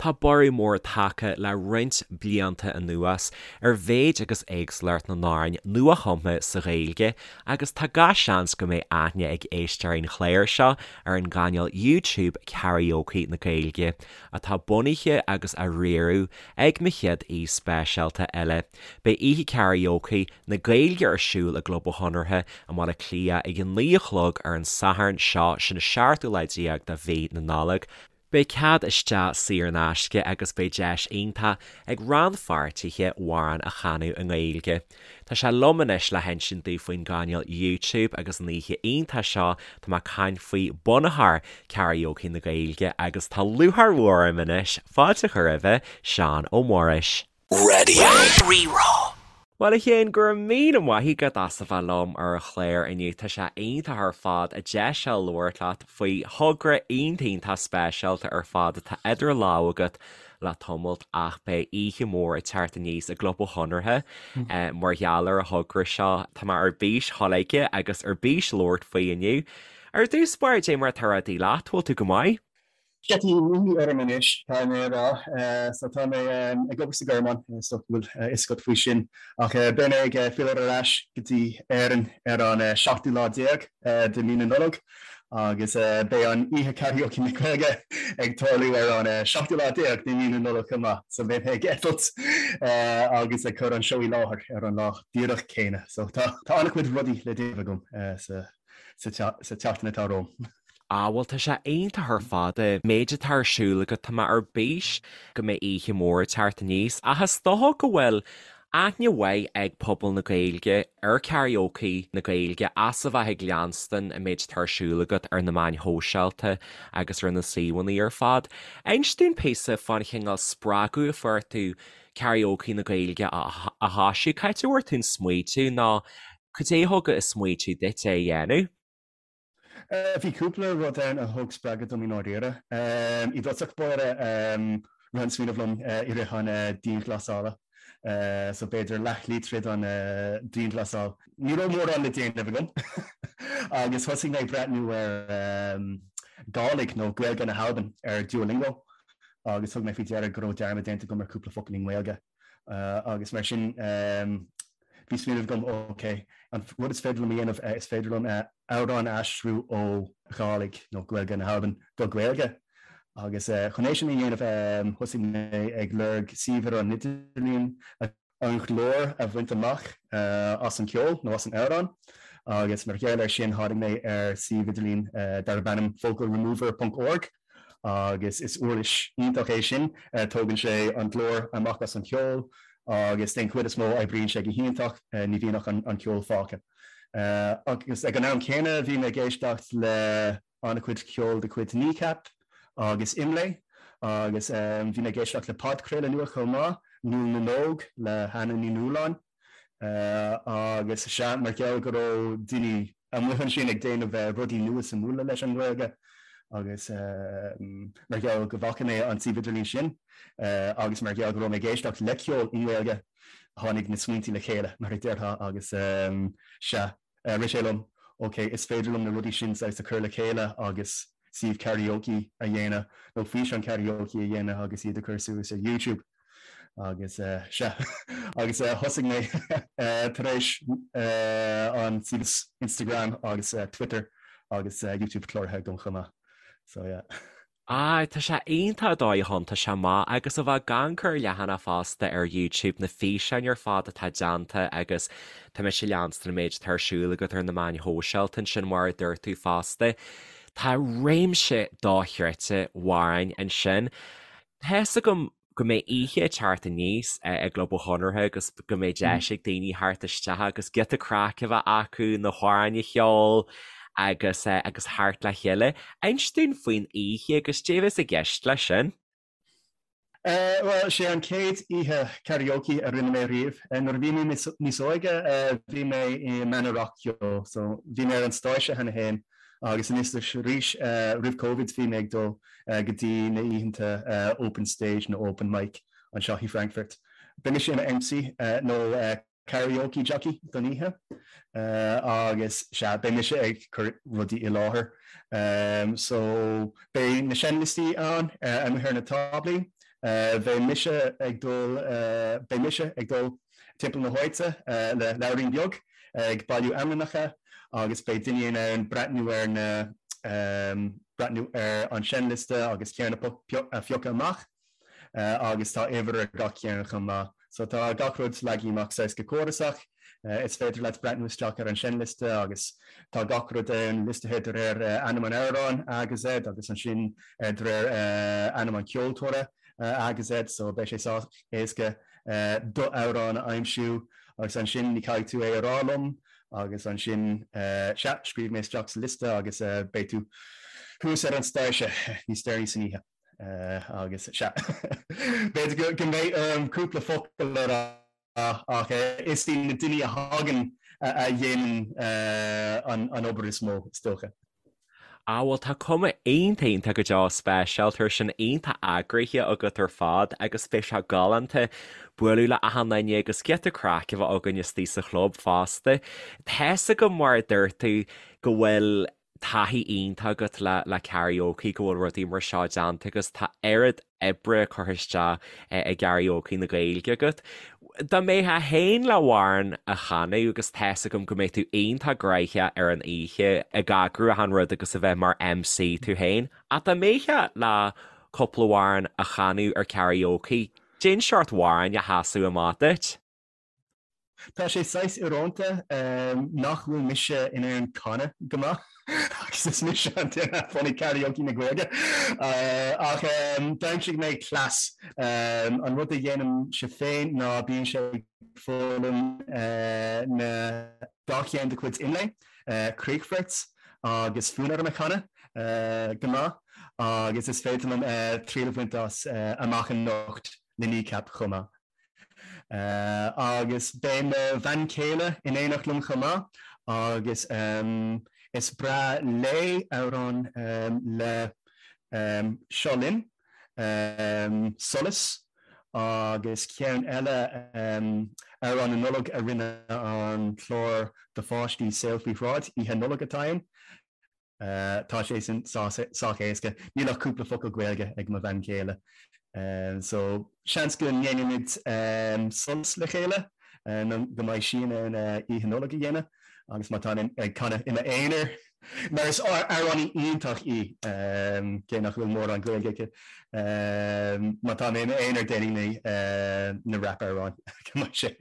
Tá borradh mór tagtha le roinnt blianta anuas ar mhéid agus éagsúlacht na n-amhrán nuachumtha sa Ghaeilge agus tá gach seans go mbeidh aithne ag éisteoirí an chláir seo ar an gcainéal YouTube Karaoke na Gaeilge, atá bunaithe agus á riaradh ag mo chéad aoi speisialta eile. Beidh oíche Karaoke na Gaeilge ar siúl i gClub an Chonartha i mBaile Átha Cliath ag a 9 a chlog ar an Satharn seo, sin an 17ú lá de mhí na Nollag. Beidh cead isteach saor in aisce agus beidh deis iontach ag rannpháirtithe amhráin a chanadh i nGaeilge. Tá sé liom anois le hinsint daoibh faoin gcainéal YouTube agus an oíche iontach seo tá mé ag caint faoi bunaitheoir Karaoke na Gaeilge agus tá lúcháir mhór orm anois fáilte a chur roimhe, Seán Ó Muiris. Raidió Rí-Rá. Bhuel a Sheáin, go raibh míle maith agat as a bheith liom ar an chlár inniu. Tá sé iontach ar fad an deis seo labhairt leat faoi thogra iontach iontach speisialta ar fad atá idir lámha agat le tamalt ach beidh oíche mhór ag teacht aníos i gClub an Chonartha mar gheall ar an thogra seo. Tá mé ar bís dhul aige agus ar bís labhairt faoi inniu. Ar dtús báire, dé mar atá rudaí leat, bhfuil tú go maith? Sea, tá imní orm anois, caithfidh mé a rá. So tá mé ag obair sa Ghearmáin, is dócha go bhfuil a fhios agat faoi sin. Ach beidh mé ag filleadh ar ais go dtí Éirinn ar an seachtú lá déag de mhí na Nollag agus beidh an oíche Karaoke na Gaeilge ag tarlú ar an seachtú lá déag de mhí na Nollag chomh maith. So beidh mé ag eitilt agus ag cur an seó i láthair ar an lá díreach céanna. So tá an-chuid rudaí le déanamh agam sa sa tseachtain atá romham. Ah bhuel tá sé iontach ar fad an méid atá ar siúl agat, tá mé ar bís go mbeidh oíche mhór ag teacht aníos ach is dócha go bhfuil aithne mhaith ag pobal na Gaeilge ar Karaoke na Gaeilge as a bheith ag leanstan an méid atá ar siúl agat ar na meáin shóisialta agus ar na suíomhanna ar fad. Inis dúinn píosa fán chineál spreagadh a fuair tú Karaoke na Gaeilge a thoisiú, cá háit a bhfuair tú an smaoitiú nó Cad é a thug an smaoitiú duit é a dhéanamh? Bhí cúpla rud ann a thug spreagadh dom i ndáiríre. I dtosach báire, rith an smaoineamh liom i rith an dianghlasála, so b'fhéidir leathshlí tríd an dianghlasáil. Ní raibh mórán le déanamh agam agus thosaigh mé ag breathnú ar Gàidhlig nó Gaeilge na hAlban ar Duolingo agus thug mé faoi deara go raibh dearmad déanta agam ar cúpla focal i nGaeilge agus mar sin Bhí smaoineamh agam, ok, an rud is féidir liom a dhéanamh, is féidir liom amhrán a aistriú ó Ghàidhlig, nó Gaeilge na hAlban, go Gaeilge. Agus chun é sin a dhéanamh, thosaigh mé ag lorg suíomh ar an idirlíon an glór a bhaint amach as an ceol nó as an amhrán. Agus mar gheall air sin, tháinig mé ar suíomh idirlín darb ainm vocalremover ponc org. agus is uirlis iontach é sin, tógann sé an glór amach as an cheol agus den chuid is mó oibríonn sé go hiontach, ní bhíonn ach an ceol fágtha. Agus ag an am céanna bhí mé ag éisteacht le an-chuid ceoil de chuid Kneecap agus Imlé agus bhí mé ag éisteacht le podchraoladh nua chomh maith, Nuall na nÓg le hAnna Ní Nualláin. Agus sea, mar gheall go raibh daoine amuigh ansin ag déanamh rudaí nua suimiúla leis an nGaeilge agus mar gheall go bhfaca mé an suíomh idirlín sin agus mar gheall go raibh mé ag éisteacht le ceol i nGaeilge, tháinig na smaointí le chéile, mar a déarfá, agus sea, rith sé liom, ok, is féidir liom na rudaí sin saghas a chur le chéile agus suíomh karaoke a dhéanamh nó físeán karaoke a dhéanamh agus iad a chur suas ar YouTube. Agus sea, agus thosaigh mé tar éis an suíomh Instagram agus Twitter agus YouTube cláraithe agam chomh maith. So yeah. Ah, tá sé iontach an dóigh a thiontaigh sé amach agus a bheith ag amharc ar leathanach fosta ar YouTube na físeáin ar fad atá déanta agus tá mise ag leanstan an méid atá ar siúl agat ar na meáin shóisialta ansin mar a dúirt tú fosta. Tá réimse dochreidte amhrán ansin. Tá fhios agam go mbeidh oíche ag teacht aníos i gClub an Chonartha agus go mbeidh deis ag daoine theacht isteach agus giota craic a bheith acu, na hamhráin a cheol agus agus theacht le chéile. Inis dúinn faoin oíche agus cad é a bheas i gceist leis sin. Bhuel, sé an chéad oíche karaoke a rinne mé riamh. Nuair a bhí mé níos óige, bhí mé i mbanna rac-cheoil, so bhí mé ar an stáitse cheana féin Agus anois is arís, roimh Covid, bhí mé ag dul go dtí na oícheanta open stage nó open mic anseo i Frankfurt. Beidh mise i mo MC nó karaoke jockey don oíche agus sea, beidh mise ag cur rudaí i láthair. So beidh na seinnliostaí ann amuigh ar na táblaí. Beidh mise ag dul, beidh mise ag dul timpeall na háite le leabhairín beag ag bailiú ainmneacha agus beidh daoine in ann breathnú ar na, breathnú ar an seinnliosta agus ceann a phiocadh amach agus tá uimhir ar gach ceann chomh maith. So tá gach rud leagtha amach saghas go córasach. Is féidir leat breathnú isteach ar an seinnliosta agus tá gach rud ann liostaithe de réir ainm an amhráin, A go Z, agus ansin de réir ainm an cheoltóra, A go Z, so beidh sé sách éasca do amhrán a aimsiú agus ansin ní caithfidh tú é a rá liom agus ansin sea, scríobh mé isteach sa liosta agus beidh tú thuas ar an stáitse níos deireanaí san oíche. Agus sea, b'fhéidir go mbeidh orm cúpla focal a rá ach is iad na daoine a thagann a dhéanann an obair is mó, is dócha. Ah bhuel tá cuma iontach iontach go deo speisialta air sin, iontach eagraithe agat ar fad agus beidh sé galánta bualadh le achan duine agus giota craic a bheith againn istigh sa chlub fosta. Tá's agam mar a dúirt tú go bhfuil taithí iontach agat le le karaoke, go bhfuil rudaí mar seo déanta agus tá oiread oibre curtha isteach i gKaraoke na Gaeilge agat. Dá mbeifeá féin le amhrán a chanadh agus tá's agam go mbeidh tú iontach gnoitheach ar an oíche ag eagrú achan rud agus a bheith mar MC tú féin, ach dá mbeifeá le cúpla amhrán a chanadh ar karaoke, cén seort amhráin a sheasfadh amach duit? Tá sé saghas íorónta nach bhfuil mise in ann canadh go maith agus is mise an duine a bhunaigh Karaoke na Gaeilge. Ach d'aimsigh mé cleas. An rud a dhéanaimse féin ná bímse ag foghlaim na dá cheann de chuid Imlé, Críochfort agus Fonn orm a chanadh go maith agus is féidir liom triail a bhaint as Amach Anocht le Kneecap chomh maith. Agus beidh mo bhean chéile in éineacht liom chomh maith agus is breá léi amhrán le Seo Linn, Solas agus ceann eile, amhrán na Nollag a rinne an clár do pháistí Saol Faoi Shráid, Oíche Nollag atá ann. Tá sé sin sách éasca. Níl ach cúpla focal Gaeilge ag mo bhean chéile. So, seans go ndéanfaimid Solas le chéile nó go mbeidh sí in ann Oíche Nollag a dhéanamh agus má táim ag canadh i m'aonar, mar is amhránaí iontach í, cé nach bhfuil mórán Gaeilge aici, má tá mé i m'aonar déanfaidh mé na rap-amhráin go mbeidh sé,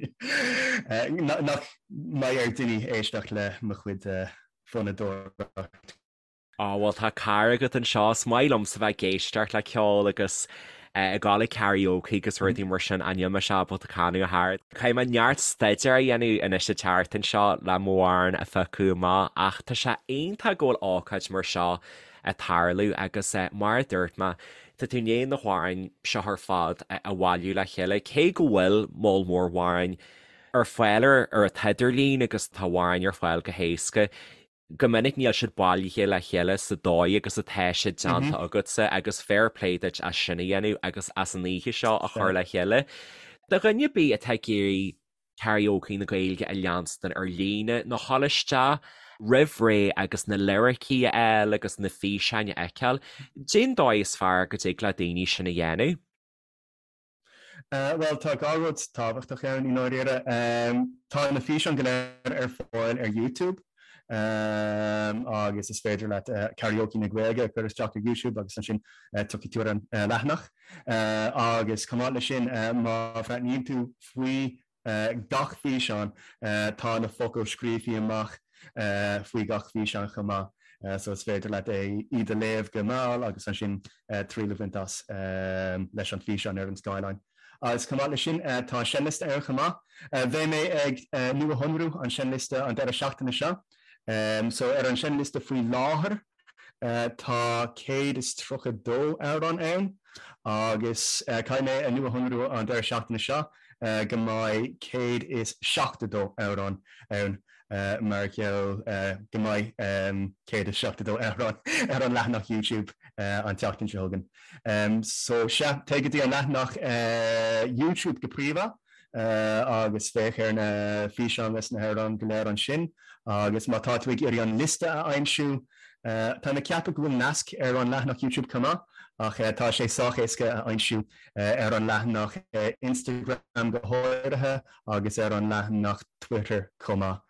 nach mbeidh ar daoine éisteacht le mo chuid fonnadóireacht. Á, bhuel, tá cara agat anseo. Is maith liomsa bheith ag éisteacht le ceol agus ag gabháil ag karaoke agus rudaí mar sin ach níl mise ábalta canadh ach oiread. Caithfidh mé neart staidéir a dhéanamh anois an tseachtain seo le m'amhrán a phiocadh amach ach tá sé iontach go bhfuil ócáid mar seo ag tarlú agus mar a dúirt mé, tá tú i ndiaidh na hamhráin seo ar fad a bhailiú le chéile cé go bhfuil moll mór amhráin ar fáil ar ar an t-idirlíon agus tá amhráin ar fáil go héasca. Go minic níl siad bailithe le chéile sa dóigh agus atá siad déanta agatsa agus fair play duit as sin a dhéanamh agus as an oíche seo a chur le chéile. Do dhuine ar bith atá ag iarraidh Karaoke na Gaeilge a leanstan ar líne nó dhul isteach roimh ré agus na liricí a fháil agus na físeáin a fheiceáil, cén dóigh is fearr go dtig le daoine sin a dhéanamh? Bhuel, tá dhá rud tábhachtach ann i ndáiríre. Tá na físeáin go léir ar fáil ar YouTube agus is féidir leat Karaoke na Gaeilge a chur isteach ar YouTube agus ansin tiocfaidh tú ar an leathanach. Agus chomh maith leis sin, má bhreathnaíonn tú faoi gach físeán, tá na focail scríofa amach faoi gach físeán chomh maith, so is féidir leat é iad a léamh go mall agus ansin triail a bhaint as leis an físeán ar an scáileán. Agus chomh maith leis sin, tá seinnliosta ann chomh maith. Beidh mé ag nuashonrú an seinnliosta an deireadh seachtaine seo. So ar an seinnliosta faoi láthair, Tá 132 amhrán ann agus caithfidh mé a nuashonrú an deireadh seachtaine seo go mbeidh 172 amhrán ann mar gheall go mbeidh 172 amhrán ar an leathanach YouTube an tseachtain seo chugainn. So sea, téigh go dtí an leathanach YouTube go príomha. agus féach ar na físeáin leis na hamhráin go léir ansin. Agus má tá tú ag iarraidh an liosta a aimsiú, táim ag ceapadh go bhfuil nasc ar an leathanach YouTube chomh maith. Ach tá sé sách éasca a aimsiú ar an leathanach Instagram go háirithe agus ar an leathanach Twitter chomh maith.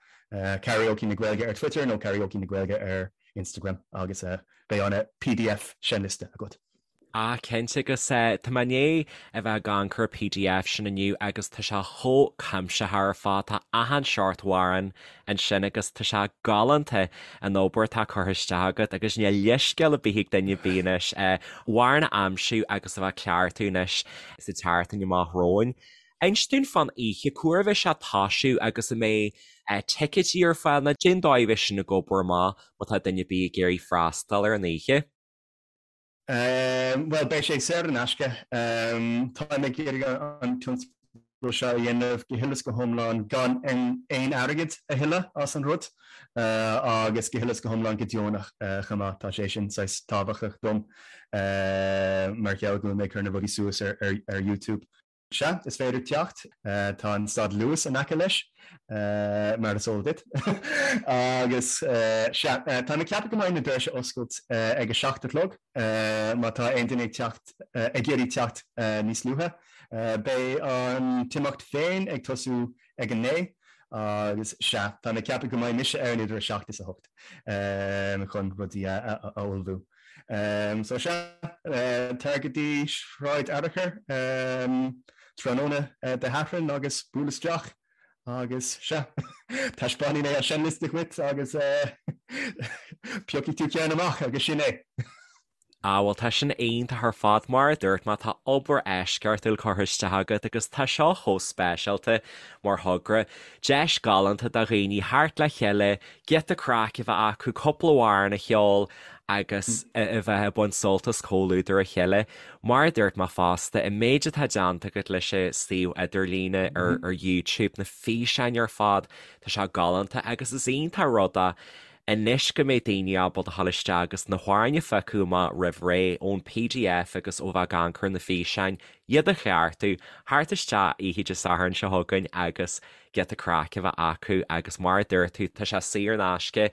Karaoke na Gaeilge ar Twitter nó Karaoke na Gaeilge ar Instagram agus beidh an pdf seinnliosta agat. Ah cinnte agus tá mé i ndiaidh a bheith ag amharc ar an pdf sin inniu agus tá sé chomh cuimsitheach ar fad, tá achan seort amhrán ansin agus tá sé galánta an obair atá curtha isteach agat agus níl leithscéal ar bith ag duine ar bith anois amhrán a aimsiú agus a bheith ag cleachtadh anois sa tseachtain amach romhainn. Inis dúinn fán oíche, cá huair a bheidh sé ag toisiú agus an mbeidh ticéidí ar fáil nó cén dóigh a bheidh sin ag obair amach má tá duine ar bith ag iarraidh freastal ar an oíche? Bhuel, beidh sé saor in aisce. Táim ag iarraidh an tionscadal seo a dhéanamh go huile is go hiomlán gan aon airgead a thuilleadh as an rud agus go huile is go hiomlán go deonach chomh maith. Tá sé sin saghas tábhachtach dom mar gheall go bhfuil mé ag cur na rudaí suas ar YouTube. Sea, is féidir teacht. Tá an stad Luas in aice leis, mar is eol duit. Agus, sea, táim ag ceapadh go mbeidh na doirse oscailt ag a 7 a chlog, má tá aon duine ag teacht, ag iarraidh teacht níos luaithe. Beidh an t-imeacht féin ag tosú ag a 9, agus, sea, táim ag ceapadh go mbeidh mise ann idir a 7 is a 8 chun rudaí a ullmhú. So sea, tar go dtí Sráid Fhearchair tráthnóna Dé Sathairn agus buail isteach agus sea, taispeánfaidh mé an seinnliosta dhuit agus piocfaidh tú ceann amach agus sin é. Ah bhuel tá sin iontach ar fad, mar a dúirt mé tá obair eisceachtúil curtha isteach agat agus tá seo chomh speisialta mar thogra. Deis galánta do dhaoine theacht le chéile, giota craic a bheith acu, cúpla amhrán a cheol agus a bheith ag baint sult as comhluadar a chéile. Mar a dúirt mé fosta, an méid atá déanta agat leis an suíomh idirlíne ar YouTube, na físeáin ar fad, tá sé galánta agus is iontach rud é anois go mbeidh daoine ábalta a dhul isteach agus na hamhráin a phiocadh amach roimh ré ón pdf agus ó bheith ag amharc ar na físeáin, iad a chleachtadh, theacht isteach oíche Dé Sathairn seo chugainn agus giota craic a bheith acu agus mar a dúirt tú, tá sé saor in aisce.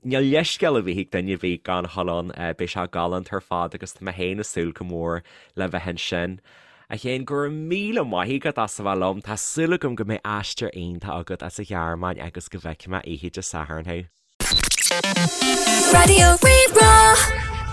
Níl leithscéal ar bith ag duine ar bith gan a dhul ann, beidh sé galánta ar fad agus tá mé féin ag súil go mór le bheith ansin. A Chéin, go raibh míle maith agat as a bheith liom, tá súil agam go mbeidh aistear iontach agat as an Ghearmáin agus go bhfeicfidh mé oíche Dé Sathairn thú. Raidió Rí-Rá.